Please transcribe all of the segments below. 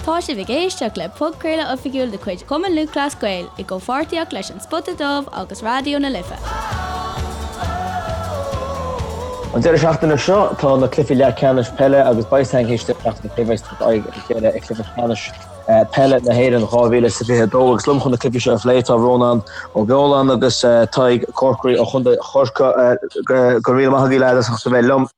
Tá sibh ag éisteacht le podchraoladh oifigiúil de chuid Chumann Lúthchleas Gael i gcomhpháirtíocht leis An Spota Dubh agus Raidió na Life. An deireadh seachtaine seo tá na cluichí leathcheannais peile agus beidh a fhios againn théis deireadh seachtaine cé bheas ag aghaidh a chéile i gcluiche ceannais peile na hÉireann 2022 agus liom chun na cluichí seo a phlé tá Rónán Ó Beoláin agus Tadhg Corkery ó Chontae Chorcaí. Go raibh míle maith agaibh lads as ucht a bheith liom.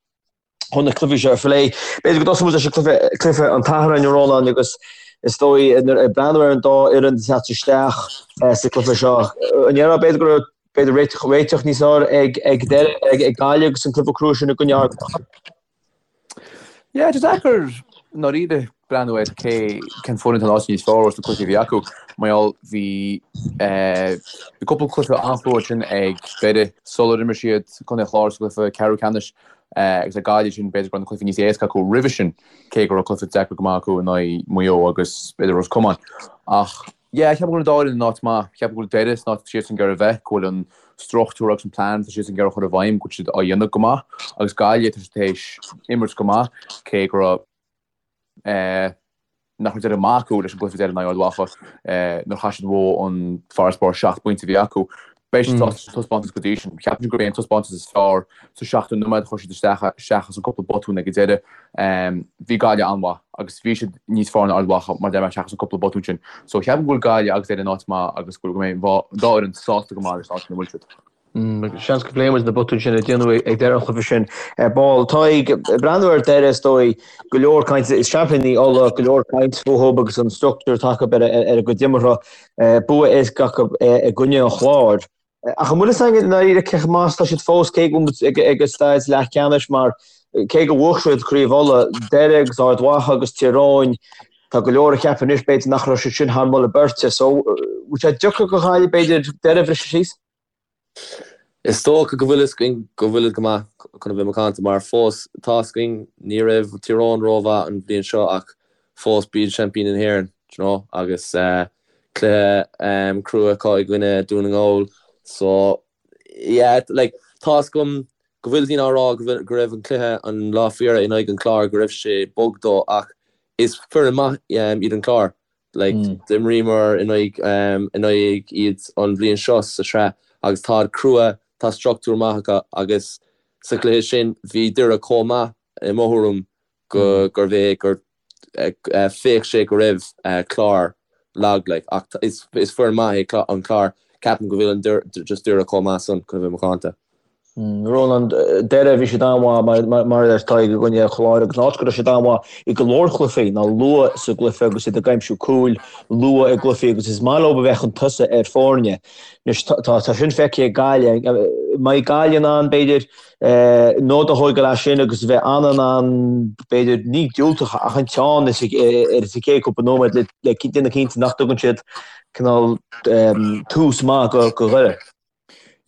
chun na cluichí seo a phlé. B'fhéidir go dtosóidh muid leis an cluiche, cluiche an tSathairn, a Rónáin, agus is dóigh nuair ag breathnú ar an dá fhoireann ag teacht isteach sa cluiche seo, an ndéarfá b'fhéidir go raibh b'fhéidir réiteach, réiteach níos fearr ag, ag Doire, ag, ag Gaillimh agus an cluiche crua sin i gcoinne Ard Mhacha? Yeah, tá deacair i ndáiríre breathnú ar cé cén foireann atá in áit níos fearr sna cluichí a bhí acu. Mar gheall bhí bhí cúpla cluiche an-chrua ansin ag Doire sular imir siad Contae an Chláir sa gcluiche ceathrú ceannais agus ag Gaillimh sin b'fhéidir go raibh na cluichí níos éasca acu roimhe sin cé go raibh cluiche deacair go maith acu in aghaidh Maigh Eo agus b'fhéidir Ros Comáin. Ach yeah, ceapaim go bhfuil an dá fhoireann in áit maith. Ceapaim go bhfuil Doire san áit atá siadsan ag iarraidh a bheith, go bhfuil an struchtúr agus an plean atá siadsan ag iarraidh a chur i bhfeidhm, go bhfuil siad á dhéanamh go maith. Agus Gaillimh, tá siad tar éis imirt go maith, cé go raibh nach raibh deireadh maith acu leis an gcluiche deiridh in aghaidh Ard Mhacha nuair chaith siad uathu an farasbarr 7 bpointe a bhí acu. Beidh siad sásta leis an taispeántas go dtí sin. Ceapaim gurb é an taispeántas is fearr sa 70 nóiméad a chuir siad isteach seachas an cúpla botún ag an deireadh. Bhí Gaillimh an-mhaith agus bhí siad níos fearr ná Ard Mhacha mar a deir mé seachas an cúpla botún sin. So ceapaim go bhfuil Gaillimh agus Doire in áit maith agus go mbeidh an dá fhoireann sásta go maith leis an áit ina bhfuil siad. Seans go bpléifidh muid na botúin sin a déanadh ag deireadh an chluiche sin. Ball, Tadhg, ag breathnú ar Doire is dóigh, go leor cainte, is seaimpíní Uladh, go leor caint fúthu agus an struchtúr atá acu ar a gcuid imeartha, bua éasca acu i gcoinne an Chláir. Ach an bhfuil fhios againn i ndáiríre cé chomh maith is atá siad fós, cé go bhfuil muid ag an staid leathcheannais mar cé go bhuaigh siad Craobh Uladh, Doire agus Ard Mhacha agus Tír Eoghain, tá go leor a cheap anois b'fhéidir nach raibh siad sin thar moladh beirte. So, bhfuil sé deacair do Ghaillimh b'fhéidir Doire a bhriseadh síos? Is dócha go bhfuil fhios againn go bhfuilid go maith chun a bheith macánta mar fós tá fhios againn ní raibh Tír Eoghain rómhaith an bhliain seo ach fós b'iad seaimpíní na hÉireann do you know agus cluiche crua acu i gcoinne Dún na nGall so yeah like tá fhios agam go bhfuil daoine á rá go bhfuil go raibh an cluiche an lá faoi dheireadh in aghaidh an Chláir go raibh sé bog dó ach is foireann maith iad an Clár Like, d'imríomar in aghaidh, in aghaidh iad an bhliain seo sa tsraith agus táid crua, tá struchtúr maith acu agus sa chluiche sin bhí Doire chomh maith i mo thuairim go, gurbh é gur, féach sé go raibh Clár lag like ach is, is foireann maith é an Clár, ceapaim go bhfuil an, just Doire chomh maith san chun a bheith macánta. Rónán, Doire, bhí siad an-mhaith mar a deir Tadhg i gcoinne an Chláir agus an áit go raibh siad an-mhaith i go leor cluichí ná luath sa gcluiche agus iad ag aimsiú cúil luath i gcluichí agus is maith leo a bheith chun tosaigh ar foirne. Anois tá sin feicthe ag Gaillimh. An mbeidh Gaillimh in ann, b'fhéidir, nod a thógáil as sin agus a bheith an-an, b'fhéidir, ní diúltach ach an teann ar sa chéad cúpla nóiméad le déanamh cinnte nach dtugann siad cineál tús maith go Dhoire.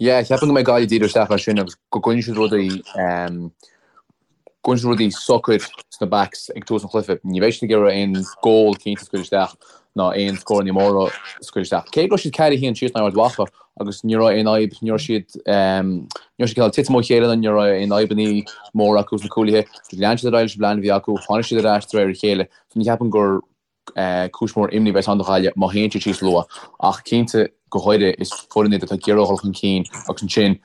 Yeah, ceapaim go mbeidh Gaillimh ag díriú isteach air sin agus go gcoinneoidh siad rudaí go gcoinneoidh siad rudaí socair sna backs ag tús an chluiche. Ní bheidh siad ag iarraidh aon gól cinnte a scaoileadh isteach ná aon scóranna móra a scaoileadh isteach. Cé go raibh siad 4-1 síos in aghaidh Ard Mhacha agus ní raibh aon fhadhb, ní raibh siad ní raibh siad cineál titim ó chéile ná ní raibh aon fhadhbanna móra acu sna cúlaithe. Lean siad ar aghaidh leis an bplean a bhí acu, tháinig siad ar ais de réir a chéile. So ní cheapaim gur cúis mhór imní a bheas ann do Ghaillimh má théann siad síos luath. Ach cinnte do Dhoire is foireann iad atá ag iarraidh a dhul chun cinn agus ansin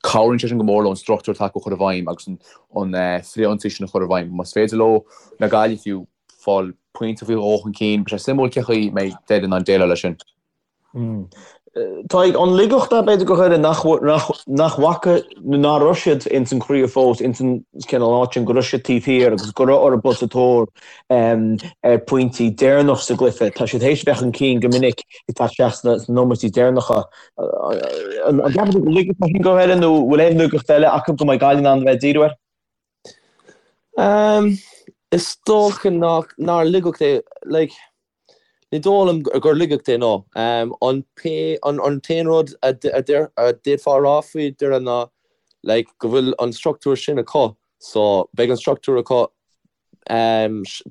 cabhraíonn sé sin go mór leo an struchtúr atá acu a chur i bhfeidhm agus an frith-ionsaí sin a chur i bhfeidhm. Más féidir leo, na Gaillimh fiú, fáil pointe faoi dhó chun cinn, beidh sé suimiúil cén chaoi a mbeidh Doire in ann déileáil leis sin. Tadhg, an laigeacht é b'fhéidir do Dhoire nach nach bhfaca nó nach raibh siad ins an chraobh fós, ins an cineál áit sin go raibh siad taobh thiar agus go raibh orthu dul sa tóir ar phointí deireanach sa gcluiche. Tá siad théis bheith chun cinn go minic ag teacht isteach sna nóiméidí deireanacha. An gceapann tú gur laigeacht é sin do Dhoire nó bhfuil aon laigeacht eile acu go mbeidh Gaillimh in ann a bheith ag díriú air? Is dócha nach nár laigeacht é, like, Ní dóigh liom gur laigeacht é no. An an t-aon rud a d'fhéadfá a rá faoi Doire ná like go bhfuil an struchtúr sin acu so beidh an struchtúr acu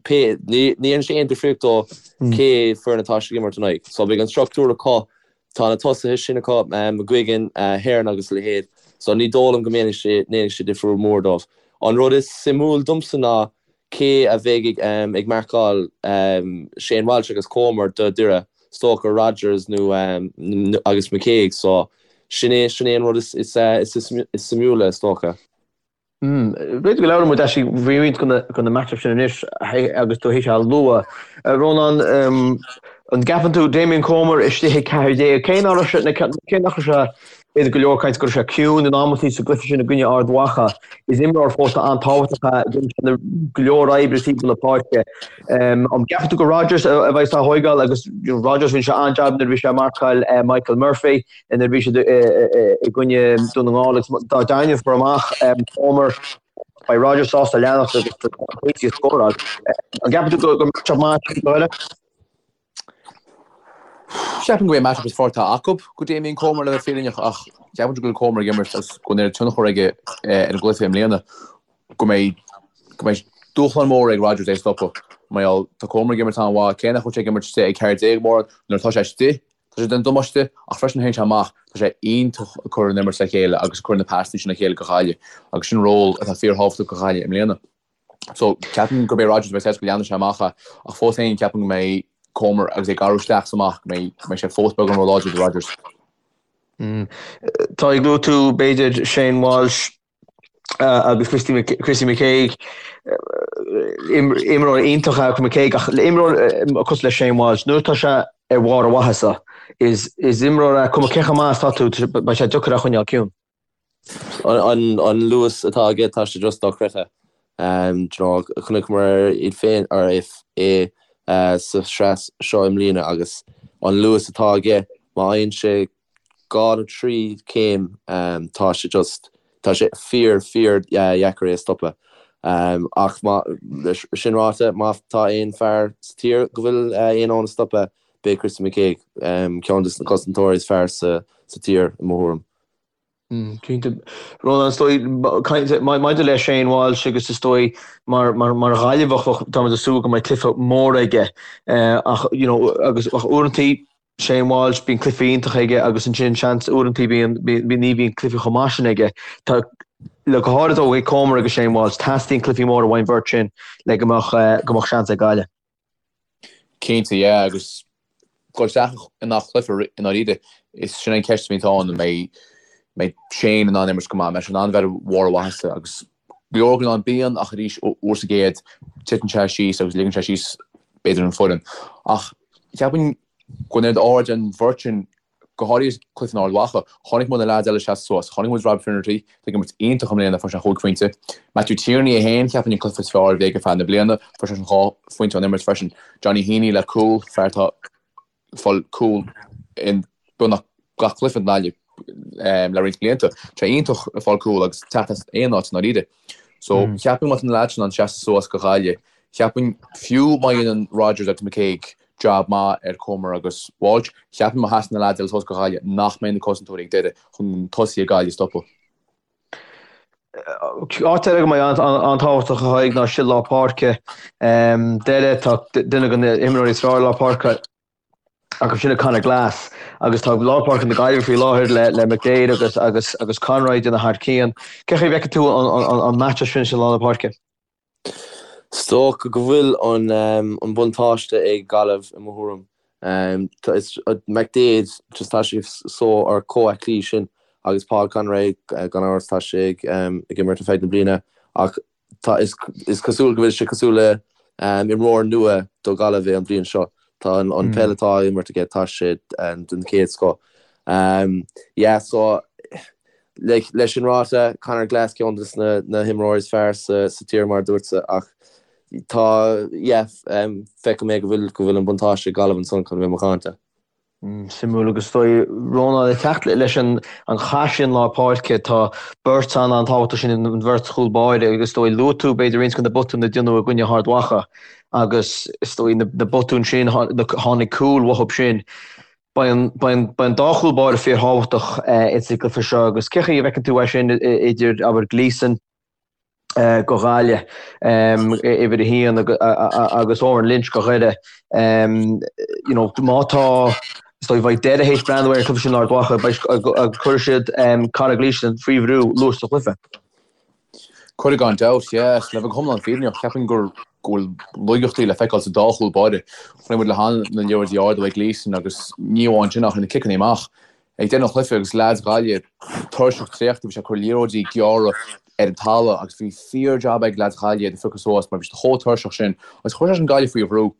pé ní dhéanann sé aon difríocht dó cé foireann atá siad ag imirt in aghaidh. So beidh an struchtúr acu tá na tosaithe sin acu McGuigan, Heron agus a leithéid so ní dóigh liom go ndéanfaidh sé ndéanfaidh sé difriúr mór dóibh. An rud is suimiúil domsa ná. Cé a bheidh ag marcáil Shane Walsh agus Comer do Doire? Is dócha Rodgers nó agus McCague so sin é sin é an rud is suimiúla is dócha. B'fhéidir go labhróidh muid actually faoi roinnt de na matchups sin anois agus tú théis a lua. Rónán, an gceapann tú Damien Comer istigh ag 14, cé nach raibh sé, cé nach raibh sé B'fhéidir go leor caint go raibh sé ciúin in amantaí sa gcluiche sin i gcoinne Ard Mhacha. Is imreoir fós an-tábhachtach é, déanann sé go leor oibre timpeall na páirce. An gceapann tú gur Rodgers a bheidh á thóigeáil agus Rodgers rinne sé an-jab nuair a bhí sé ag marcáil Michael Murphy nuair a bhí siad i gcoinne Dún na nGall agus dá dtarraingeofar amach Comer beidh Rodgers sásta leanacht agus pointí a scóráil. An gceapann tú gur matchup maith é do Dhoire? Ceapaim go bhfuil matchup is fearr atá acu go Damien Comer le bheith fírinneach ach ceapaim go bhfuil Comer ag imirt agus go bhfuil an oiread tionchar aige ar an gcluiche i mbliana go mbeidh go mbeidh dúshlán mór ag Rodgers é a stopadh. Mar gheall tá Comer ag imirt an-mhaith cé nach bhfuil sé ag imirt istigh ag 14 mórán nuair atá sé istigh tá sé ag déanamh damáiste ach freisin nuair a théann sé amach tá sé iontach ag cur an imirt le chéile agus ag cur na pasanna sin le chéile go Gaillimh agus sin ról atá fíorthábhachtach go Gaillimh i mbliana. So, ceapaim gurb é Rodgers a bheidh sásta go leanfaidh sé amach é, ach fós féin ceapaim go mbeidh Comer agus é ag athrú isteach is amach, go mbeidh, go mbeidh sé fós beagán róláidir do Rodgers. Tá ag luaigh tú b'fhéidir Shane Walsh agus Christy Christy McKaigue, imreoir iontach é McKaigue ach imreoir cosúil le Shane Walsh, nuair atá sé ar bharr a mhaitheasa, is is imreoir é cuma cé chomh maith is atá tú, beidh sé deacair é a choinneáil ciúin. An luas atá aige, tá sé just dochreidte. Chonaiceamar iad féin, or é sa sraith seo i mbliana agus an luas atá aige, má fhaigheann sé 2 nó 3 céim, tá sé just, tá sé fíor, fíor dheacair é a stopadh. Ach má, sin ráite, má tá aon fear sa tír go bhfuil é in ann a stopadh, b'é Christy McKaigue, ceann de na cosantóirí is fearr sa tír, i mo thuairim. Cinnte. Rónán, is dóigh, maidir le Shane Walsh agus is dóigh mar Ghaillimheach táimid ag súil go mbeidh cluiche mór aige ach you know agus ach uaireantaí Shane Walsh bíonn cluiche iontach aige agus ansin seans uaireantaí bíonn ní bhíonn cluiche chomh maith sin aige. Tá le go háirithe ó Comer agus Shane Walsh teastaíonn cluichí móra ón bheirt sin le go mbeadh go mbeadh seans ag Gaillimh. Cinnte, yeah, agus dul isteach i ngach cluiche i ndáiríre, is sin an ceist a bhíonn ann, an mbeidh mbeidh Shane in ann imirt go maith, an mbeidh sé in ann bheith ar bharr a mhaitheasa agus go leor den am bíonn ach arís uair sa gcéad titeann sé síos agus ligeann sé síos b'fhéidir an foireann. Ach cheapfainn go bhfuil an oiread aird ar an bheirt sin go háirithe cluiche in Ard Mhacha. Chonaic muid na leaids eile seasamh suas. Chonaic muid Rob Finnerty, atá ag imirt iontach i mbliana, fuair sé chúig phointe. Matthew Tierney é féin, cheapfainn an cluiche is fearr a bhí aige feadh na bliana, fuair seisean 2 phointe ón imirt freisin. Johnny Heaney le cúl, fear atá ag fáil cúl in beagnach gach cluiche i nGaillimh le roinnt blianta. Tá sé iontach ag fáil cúl agus teacht as aon áit i ndáiríre. So, cheapfainn má tá na leaids in ann seasamh suas go Gaillimh, cheapfainn fiú má dhéanann Rodgers agus McKaigue jab maith ar Comer agus Walsh. Cheapfainn má sheasann na leaids eile suas go Gaillimh nach mbeidh na cosantóirí ag Doire chun tosaithe Gaillimh a stopadh. Áit eile go mbeidh an-tábhachtach a Thaidhg ná istigh i lár páirce. Doire, tá duine de na himreoirí is fearr i lár páirce acu sin Conor Glass agus tá lár páirce na Gaillimhe faoi láthair le le McDaid agus agus agus Conroy ag déanamh thar cionn. Cé chaoi a bhfeiceann tú an match sin i lár na páirce? Is dócha go bhfuil an buntáiste ag Gaillimh i mo thuairim. McDaid just tá sé so ar chomh aclaí sin agus Paul Conroy gan amhras tá sé ag imirt ar feadh na bliana ach tá is cosúil go bhfuil sé cosúil le imreoir nua do Ghaillimh é an bhliain seo. Tá an peil atá á imirt aige tá sé den chéad scoth. Yeah so Leis sin ráite, Conor Glass ceann de na himreoirí is fearr sa tír mar a dúrtsa ach tá, yeah, feicim é go bhfuil go bhfuil an buntáiste ag Gaillimh ansan chun a bheith macánta. Suimiúil agus is dóigh, Rónán, ag teacht leis an chath sin lár páirce, tá beirt an-tábhachtach sin an bheirt chúl báire agus is dóigh luaigh tú b'fhéidir roinnt de na botúin a déanadh i gcoinne Ard Mhacha agus is dóigh na botúin sin, tháinig cúl uathu sin. Beidh an dá chúl báire fíorthábhachtach ins an gcluiche seo agus cé chaoi a bhfeiceann tú é sin idir, abair, Gleeson go Ghaillimh, uimhir a haon, agus Odhrán Lynch go Dhoire. You know, má tá, is dóigh, beidh Doire théis breathnú ar an gcluiche sin in Ard Mhacha, beidh, cuirfidh siad Conor Gleeson faoi bhrú luath sa chluiche. Cuirfidh gan dabht, yeah. Le bheith go hiomlán fírinneach, ceapaim gur go bhfuil laigeachtaí le feiceáil sa dá chúl báire. Chonaic muid na liathróidí arda uaidh Gleeson agus ní amháin sin ach ar na ciceanna amach ag deireadh an chluiche agus leaids Ghaillimh tuirseach traochta bhí sé ag cur liathróidí gearra ar an talamh agus bhí fíor jab ag leaids Ghaillimh iad a phiocadh suas mar bhí siad chomh tuirseach sin agus chuir sé sin Gaillimh faoi bhrú.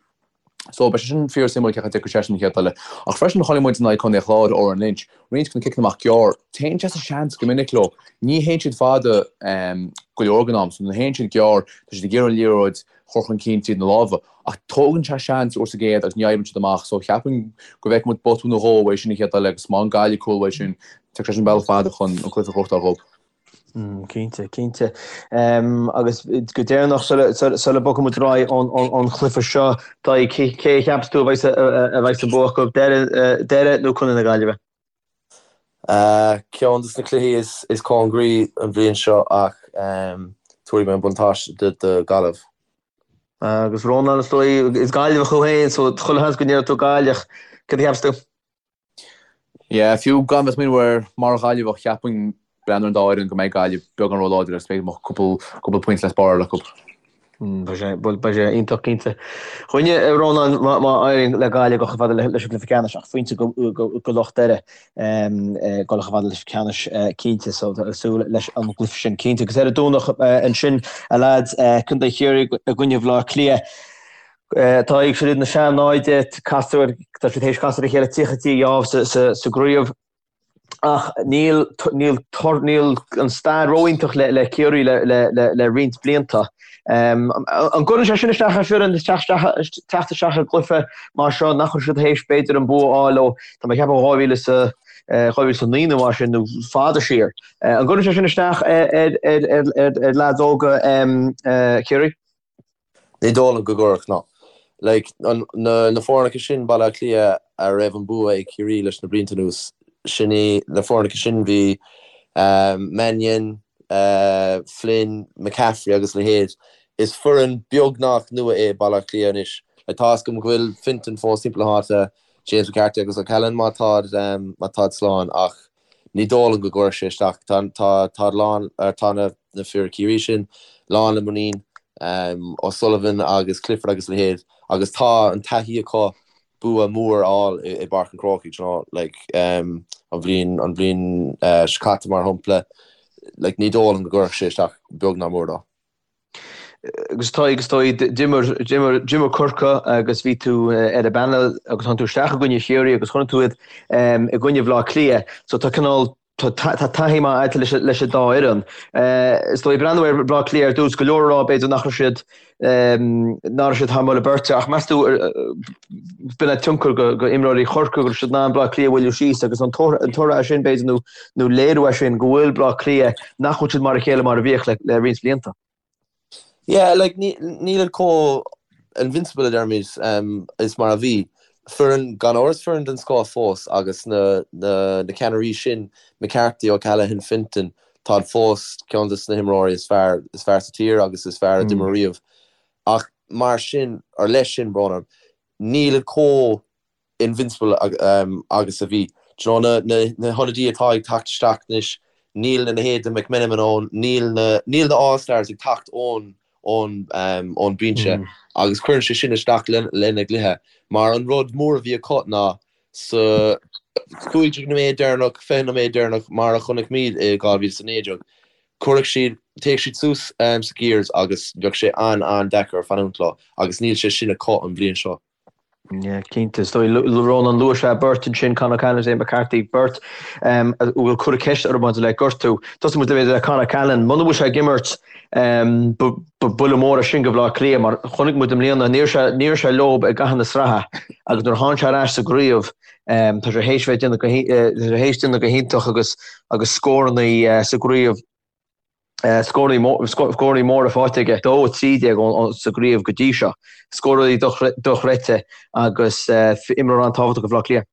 So, beidh sé sin fíor suimiúil cén chaoi a dtiocfaidh sé sin an chéad eile. Ach freisin chonaic muid in aghaidh Contae an Chláir, Odhrán Lynch, roinnt de na ciceanna amach gearr, téann sé sa seans go minic leo. Ní théann siad fada go leor den am, so nuair a théann siad gearr, tá siad ag iarraidh an liathróid a chur chun cinn tríd na lámha. Ach tógann sé seans uair sa gcéad agus ní oibríonn siad amach, so cheapfainn go bhfeicfidh muid botún nó dhó uaidh sin an chéad eile agus má fhaigheann Gaillimh cúl uaidh sin, tiocfaidh sé sin bealach fada chun an cluiche a ghnóthachtáil dhóibh. Cinnte, cinnte. Agus go deireanach, sula bogfaidh muid ar aghaidh ón chluiche seo, Tadhg, cé a cheapas tú a bheidh an bua acu, Doire nó Contae na Gaillimhe? Ceann de na cluichí is cóngaraí an bhliain seo ach tabharfaidh mé an buntáiste do Ghaillimh. Agus Rónán, is dóigh, is Gaillimheach thú féin, so chuile sheans go ndéarfaidh tú Gaillimh. Cad a cheapas tú? Yeah, fiú gan bheith ag smaoineamh air mar Ghaillimheach, cheapfainn breathnú ar an dá fhoireann go mbeidh Gaillimh beagán róláidir agus beidh cúpla cúpla pointe le spáráil acu. Beidh sé, bhuel, beidh sé iontach cinnte. Dhuine, a Rónáin, má má éiríonn le Gaillimh dul chomh fada leis an gcluiche ceannais ach phointe go go go lucht Doire dul chomh fada leis an ceannais cinnte so tá súil leis an gcluiche sin cinnte. Agus ar an Domhnach ansin, a lads, Contae Chiarraí i gcoinne Bhaile Átha Cliath. Tá ag siad na sean-naimhde, castar, tá siad théis casadh ar a chéile tríochaidí geábh sa gcraobh ach níl, níl, níl an stair ró-iontach le Ciarraí le roinnt blianta. An gcuireann sé sin isteach ar foireann teacht isteach i gcluiche mar seo nach bhfuil siad théis b'fhéidir an bua a fháil ó, tá mé ag ceapadh 2009 nó mar sin nó fada siar. An gcuireann sé sin isteach ar leaids óga Chiarraí? Ní dóigh liom go gcuirfeadh, no. Like, an, na, na foirneacha sin, Baile Átha Cliath, a raibh an bua ag Ciarraí leis na blianta anuas, sin í, na foirneacha sin, bhí Mannion, Flynn, McCaffrey agus a leithéid. Is foireann beagnach nua é Baile Átha Cliath anois. Like, tá a fhios agam go bhfuil Fintan fós timpeall na háite, James McCarthy agus O'Callaghan má táid, má táid slán ach ní dóigh liom go gcuirfeadh sé isteach. Tá, tá, tá lán, tá na. na fir Chiarraí sin lán le muinín, O'Sullivan agus Clifford agus a leithéid, agus tá an taithí acu bua mór a fháil i bPáirc an Chrócaigh, you know, like, an bhliain, an bhliain seo caite mar shampla, like, ní dóigh liom go gcuirfeadh sé isteach beag ná mór dó. Agus tá, agus tá, d'imir, d'imir, d'imir Corcaigh agus bhí tú ar an bpanel agus tháinig tú isteach i gcoinne Chiarraí agus chonaic tú iad i gcoinne Bhaile Átha Cliath, so tá cineál, Tá taithí maith agat leis an dá fhoireann. Is dóigh, breathnú ar Bhaile Átha Cliath ar dtús, go leor ag rá b'fhéidir nach raibh siad, nach raibh siad thar moladh beirte ach meas tú b'in é tionchar go imreoirí Chorcaí go raibh siad in ann Baile Átha Cliath a bhualadh síos agus an toradh é sin b'fhéidir nó nó léiriú é sin go bhfuil Baile Átha Cliath nach bhfuil siad mar a chéile mar a bhíodh le roinnt blianta. Yeah, like, níl chomh invincible a deirimid is mar a bhí. Foireann, gan amhras, foireann den scoth fós agus na na na ceannairí sin, McCarthy, O'Callaghan, Fintan, táid fós ceann de na himreoirí is fearr is fearr sa tír agus is fearr a d'imir riamh. Ach mar sin, or leis sin, brón orm, nílid chomh invincible agus a bhí. Do you know, na, na hionadaí atá ag teacht isteach anois, níl na leithéid de McMenamin ann, níl na, níl na All-Stars ag teacht ón, ón, ón binse agus cuireann sé sin isteach lena gcluiche. Mar an rud mór a bhí acu ná sa 15 nóiméad deireanach, 20 nóiméad deireanach, mar a chonaic muid i 2019, cuirfeadh siad, théadh siad suas sa gears agus bheadh sé an-an-deacair fanúint leo agus níl sé sin acu an bhliain seo. Yeah, cinnte. Is dóigh, Rónán, luaigh sé beirt ansin, Con O'Callaghan is Aodh McCarthy, beirt a bhfuil curtha ceist orthu maidir le gortú. Tosóidh muid le Con O'Callaghan. Muna bhfuil sé ag imirt, ba buille mór é sin do Bhaile Átha Cliath mar chonaic muid i mbliana, ní raibh sé, ní raibh sé leo i gcaitheamh na sraithe agus nuair a tháinig sé ar ais sa gcraobh, tá sé théis bheith ag déanamh go, tá sé théis déanamh go hiontach agus agus scóranna sa gcraobh. Scóranna móra faighte aige, 2, 13 sa gcraobh go dtí seo. Scórálaí dochreidte agus imreoir an-tábhachtach do Bhaile Átha Cliath.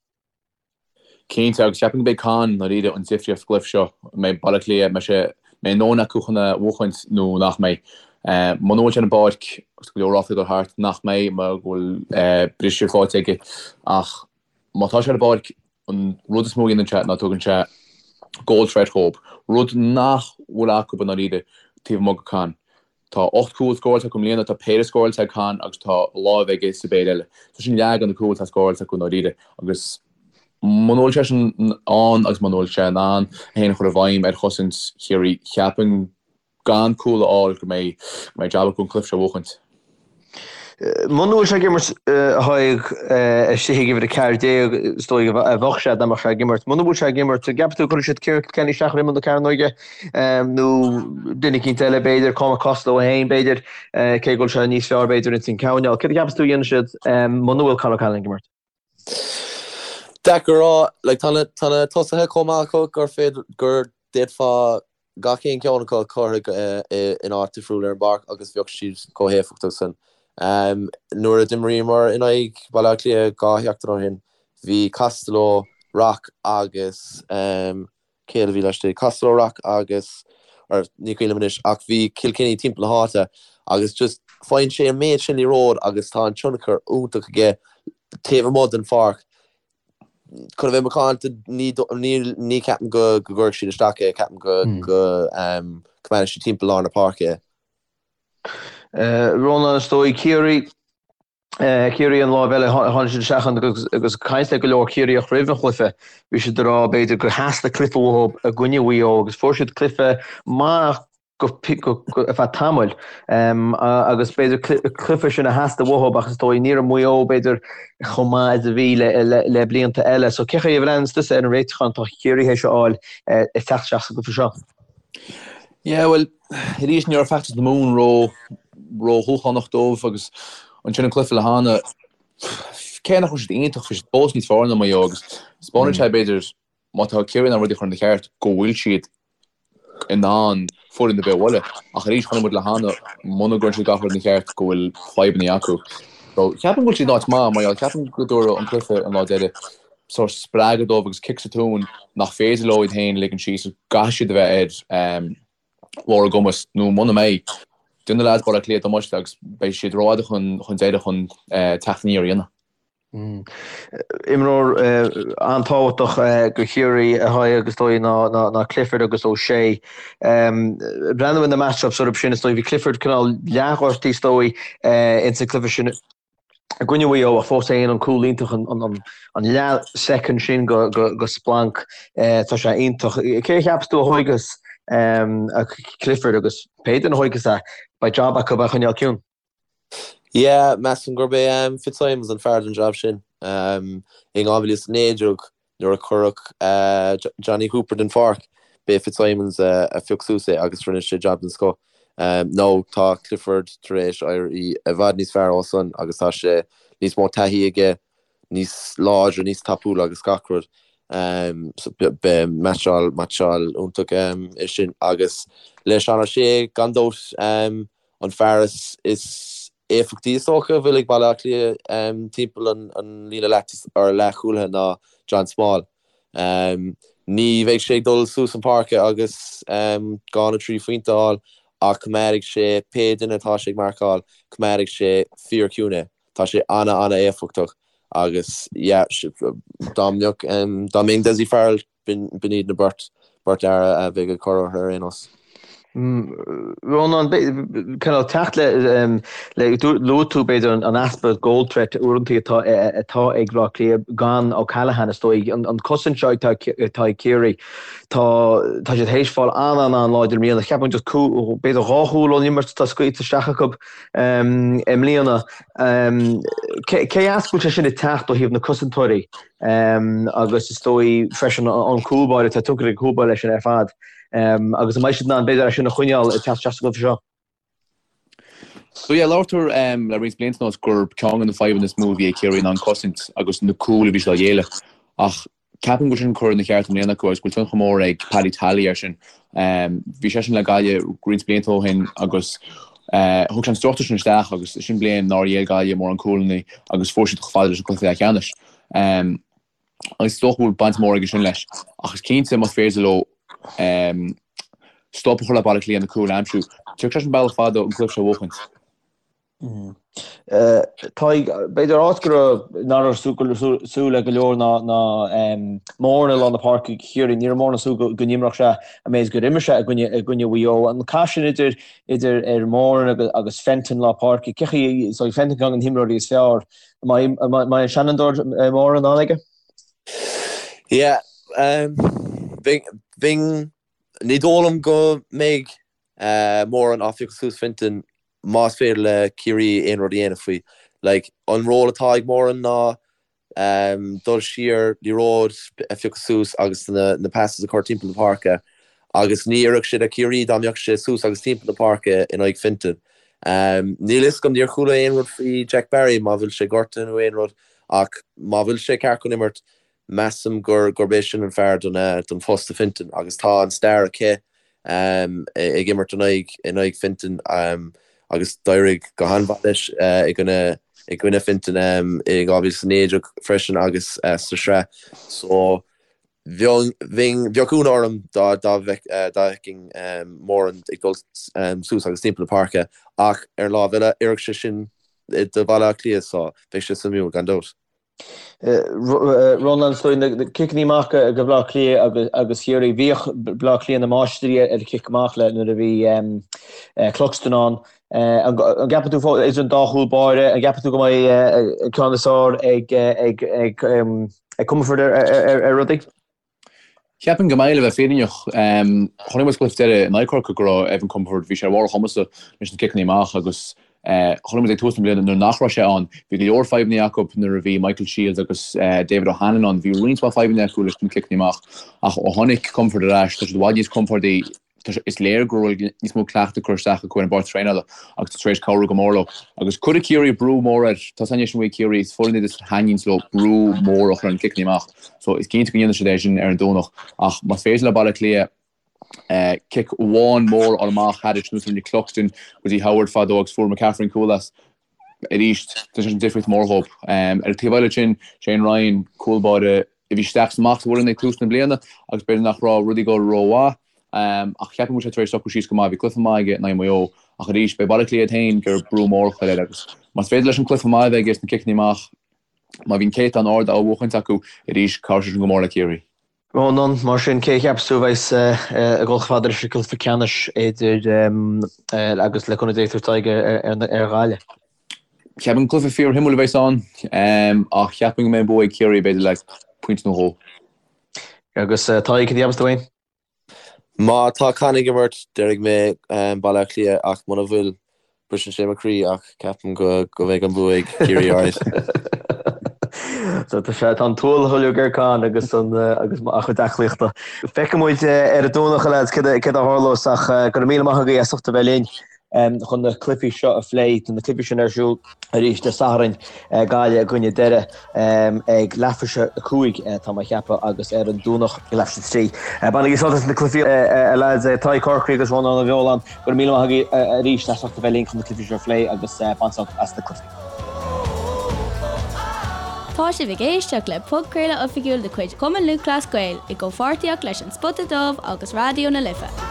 Cinnte, agus ceapaim go mbeidh Con i ndáiríre an difríocht sa gcluiche seo. An mbeidh Baile Átha Cliath, mbeidh sé, mbeidh a ndóthain acu chun é a bhuachaint nó nach mbeidh. Muna bhfuil sé ar an bpáirc, agus go leor ráflaí ag dul thart nach mbeidh mar go bhfuil briseadh faighte aige, ach má tá sé ar an bpáirc, An rud is mó a dhéanann sé ná tugann sé goal threat dhóibh, rud nach bhfuil acu i ndáiríre. taobh amuigh de Con. Tá 8 cúl scóráilte acu i mbliana, tá péire scóráilte ag Con agus tá lámh aige sa bpéire eile. So sin leath de na cúil atá scóráilte acu i ndáiríre agus muna bhfuil sé sin ann agus muna bhfuil sé in ann é féin a chur i bhfeidhm ar chosaint Chiarraí, cheapfainn gan cúl a fháil go mbeidh go mbeidh jab acu an cluiche seo a bhuachaint. Muna bhfuil sé ag imirt a Thaidhg istigh ag uimhir 14 is dóigh a bheadh sé dá mbeadh sé ag imirt. Muna bhfuil sé ag imirt, an gceapann tú go gcuirfidh siad Ciarán Kilkenny isteach ar imeall na cearnóige nó duine eicínt eile b'fhéidir, Cormac Costello é féin b'fhéidir, cé go bhfuil sé níos fearr b'fhéidir ins an choirnéal. Céard a cheapas tú a dhéanfaidh siad muna bhfuil Con O'Callaghan ag imirt? Deacair a rá. Like, tá na, tá na tosaithe chomh maith acu gur féidir, gur d'fhéadfá gach aon cheann acu a chur in áit difriúil ar an bpáirc agus bheadh siad chomh héifeachtach san. Nuair a d'imríomar in aghaidh Bhaile Átha Cliath 2 sheachtain ó shin, bhí Costello, Rock agus. Cé eile a bhí laistigh? Costello, Rock agus, or ní cuimhin liom anois, ach bhí Kilkenny timpeall na háite agus just faigheann sé an méid sin liathróid agus tá an tionchar iontach aige taobh amuigh den pháirc. Chun a bheith macánta, ní, ní, ní ceapaim go, go gcuirfidh siad isteach é, ceapaim go, go coimeádfaidh siad timpeall lár na páirce é. Rónán, is dóigh, Ciarraí. Ciarraí an láimh eile, tháinig siad isteach ann agus ag caint le go leor Ciarraíoch roimh an chluiche, bhí siad ag rá b'fhéidir gur theastaigh cluiche uathu i gcoinne Mhaigh Eo agus fuair siad cluiche maith go ar feadh tamaill agus b'fhéidir cluiche sin a theastaigh uathu ach is dóigh ní raibh Maigh Eo b'fhéidir chomh maith is a bhí le blianta eile. So cé chaoi a bhreathnaíonn tusa ar an réiteachán atá Ciarraí théis a fháil ag teacht isteach sa gcluiche seo? Yeah, bhuel, arís ní raibh feachtas na Mumhan ró ródhúshlánach dóibh agus ansin an cluiche le hAnna, cé nach raibh siad iontach, bhí siad fós níos fearr ná Maigh Eo agus spáineann sé b'fhéidir má tá Ciarraí in ann rudaí a chur ina cheart go bhfuil siad in ann foireann ar bith a bhualadh. Ach arís chonaic muid le hAnna muna gcuireann siad gach rud ina cheart go bhfuil fadhbanna acu. So ceapaim go bhfuil siad in áit maith mar gheall ceapaim go dtabharfaidh an cluiche an lá deiridh sórt spreagadh dóibh agus cic sa tóin nach féidir leo iad féin a ligean síos, caithfidh siad a bheith ar bharr a gcumas nó muna mbeidh, déanfaidh na leaids Baile Átha Cliath damáiste agus beidh siad rófhada chun deiridh chun teacht aniar a dhéanamh. Imreoir an-tábhachtach do Chiarraí a Thaidhg is dóigh ná Clifford agus O'Shea. Breathnú ar na match-ups orthu sin is dóigh bhí Clifford cineál leathghortaithe is dóigh ins an cluiche sin. I gcoinne Mhaigh Eo ach fós féin an cúl iontach an leath soicind sin go splanc tá sé iontach. Cé a cheapas tú a thóigfeas Clifford agus pé duine a thóigfeas é beidh jab acu é a choinneáil ciúin. Yeah, measaim gurb é Fitzsimons an fear don jab sin. In 2019 Nuair a cuireadh Johnny Hooper den pháirc, b'é Fitzsimons a phioc suas é agus rinne sé jab den scoth. Now tá Clifford tar éis éirí i bhfad níos fearr ó san agus tá sé níos mó taithí aige, níos láidre, níos tapúla agus gach rud. So beidh meaitseáil, meaitseáil iontach é sin. Agus le Seán O'Shea gan dabht an fear is éifeachtaí is dócha a bhfuil ag Baile Átha Cliath timpeall an líne leathchúlaithe ná John Small. Ní bheidh sé ag dul suas an páirce agus 2 nó 3 phointe a fháil ach coimeádfaidh sé pé duine atá sé ag marcáil, coimeádfaidh sé fíor ciúin é. Tá sé ana ana éifeachtach agus yeah dá mbeadh dá mbeinn Dessie Farrell B'in iad na beirt bheirt fhear a bheadh ag cur orthu ar aon nós. Rónán, cineál teacht le, le, luaigh tú b'fhéidir an easpa goal threat uaireanta atá atá ag Bleá Cliath gan O'Callaghan is dóigh. An cosaint seo atá atá ag Ciarraí, tá tá siad théis fáil an-an-an-láidir i mbliana. Cheapfainn just cú, b'fhéidir 2 chúl ón imirt atá scaoilte isteach acu i mbliana. Cé cé as go bhfuil sé sin ag teacht ó thaobh na cosantóirí? Agus is dóigh freisin an cúl báire, tá tionchar ag an cúl báire leis sin ar fad. Agus an mbeidh siad in ann b'fhéidir é sin a choinneáil ag teacht isteach sa gcluiche seo? So yeah, labhair tú le roinnt blianta anuas gur ceann de na fadhbanna is mó a bhí ag Ciarraí ná an cosaint agus na cúil a bhí siad á ghéilleadh. Ach ceapaim go bhfuil sin curtha ina cheart i mbliana acu agus go bhfuil tionchar mór ag Paddy Tally air sin. Bhí seisean le Gaillimh roinnt blianta ó shin agus thug sé an struchtúr sin isteach agus sin bliain nár ghéill Gaillimh mórán cúlanna agus fuair siad chomh fada leis an gcluiche leathcheannais. Agus is dócha go bhfuil baint mhór aige sin leis. Ach is cinnte más féidir leo stop a chur le Baile Átha Cliath na cúil a aimsiú, tiocfaidh sé sin bealach fada an cluiche seo a bhuachaint. Tadhg, b'fhéidir áit go raibh nach raibh súil le go leor ná Moran i lár na páirce ag Ciarraí. Ní raibh mórán ag súil go n-imreodh sé an méid gur imir sé i gcoinne Mhaigh Eo. An cath sin idir idir Moran agus Fenton i lár páirce, cé chaoi is Fenton ceann de na himreoirí is fearr. An mbeidh an seanfhondúir Moran ann aige? Yeah, bheinn, ní dóigh liom go mbeidh Moran á phiocadh suas Fenton más féidir le Ciarraí aon rud a dhéanamh faoi. Like, an ról atá ag Moran ná dul siar, liathróid a phiocadh suas agus na na passes a chur timpeall na páirce agus ní oirfeadh sé do Chiarraí dá mbeadh sé suas agus timpeall na páirce in aghaidh Fenton. Níl fhios agam, níor chuala aon rud faoi Jack Barry má bhfuil sé gortaithe nó aon rud ach má bhfuil sé ceart chun imirt, Measaim gurb é sin an fear don phost do Fintan agus tá an stair aici ag imirt in aghaidh in aghaidh Fintan agus d'éirigh go han-mhaith leis i gcoinne i gcoinne Fintan i 2019 freisin agus sa sraith. So bheinn bheadh ionadh orm dá dá bhfeicfinn Moran ag dul suas agus timpeall na páirce ach ar an lámh eile oirfidh sé sin do Bhaile Átha Cliath so beidh sé suimiúil gan dabht. Rónán, is dóigh, na ciceanna amach ag Baile Átha Cliath agus Chiarraí. Bhíodh Baile Átha Cliath ina máistrí ar an chic amach le nuair a bhí Cluxton ann. An gceapann tú idir an dá chúl báire, an gceapann tú go mbeidh an ceann is fearr ag Comerford ar rudaí? Cheapfainn go mbeidh, le bheith fírinneach. Chonaic muid sa gcluiche deiridh in aghaidh Corcaigh go raibh Evan Comerford, bhí sé ar bharr a chumasa leis na ciceanna amach agus chonaic muid ag tús na bliana nuair nach raibh sé ann, bhí go leor fadhbanna acu nuair a bhí Michael Shields agus David O'Hanlon ann, bhí roinnt mhaith fadhbanna acu leis na ciceanna amach ach ó tháinig Comerford ar ais tá siad i bhfad níos compórdaí. Is léir go bhfuil níos mó cleachtaidh curtha isteach acu ar an bpáirc traenála agus tá tar éis cabhrú go mór leo. Agus cuirfidh Ciarraí brú mór air. Tá san fhios uaidh Ciarraí, is foireann iad is thaitníonns leo brú mór a chur ar na ciceanna amach. So is cinnte go ndéanfaidh siad é sin ar an Domhnach. Ach más féidir le Baile Átha Cliath cic amháin mór a fháil amach thairis nós a rinne Cluxton go dtí Howard fadó agus fuair McCaffrey an cúl as, arís, tá sé sin difríocht mór dhóibh. Ar an taobh eile sin, Shane Ryan, cúl báire a bhí isteach is amach sa bhfoireann ag tús na bliana agus b'fhéidir nach raibh rudaí ag dul rómhaith ach ceapaim go bhfuil sé tar éis socrú síos go maith. Bhí cluiche maith aige in aghaidh Mhaigh Eo ach arís, beidh Baile Átha Cliath iad féin ag iarraidh brú mór a chur air agus más féidir leis an cluiche maith a bheith aige sna ciceanna amach, má bhíonn céatadán ard á bhuachaint acu arís, cabhróidh sé sin go mór le Ciarraí. Rónán, Mar sin, cé a cheapas tú a bheas ag dul chomh fada leis an gcluiche ceannais idir agus le cúnamh Dé ag tabhairt aghaidh ar Ghaillimh? Ceapaim cluiche fíorshuimiúil a bheas ann ach cheapfainn go mbeidh an bua ag Ciarraí b'fhéidir le pointe nó dhó. Agus Tadhg, cad a cheapas tú féin? Má tá Con ag imirt, déarfaidh mé Baile Átha Cliath ach muna bhfuil, briseann sé mo chroí ach ceapaim go go mbeidh an bua ag Ciarraí alright. So tá sé, tá an t-ualach uilig ar Con agus an agus a chuid aclaíochta. Feicfidh muid ar an Domhnach a lads céard a céard a tharlós ach go raibh míle maith agaibh as ucht a bheith linn. chun na cluichí seo a phlé. Tá na cluichí sin ar siúl arís Dé Sathairn, Gaillimh i gcoinne Doire ag leathuair tar éis a 5, tá mé ag ceapadh, agus ar an Domhnach ag leathuair tar éis a 3. Bainigí sult as na cluichí, a lads, Tadhg Corkery agus Rónán Ó Bheoláin. Go raibh míle maith agaibh arís as ucht a bheith linn chun na cluichí seo a phlé agus bain sult as na cluichí. Tá sibh ag éisteacht le podchraoladh oifigiúil de chuid Chumann Lúthchleas Gael i gcomhpháirtíocht leis An Spota Dubh agus Raidió na Life.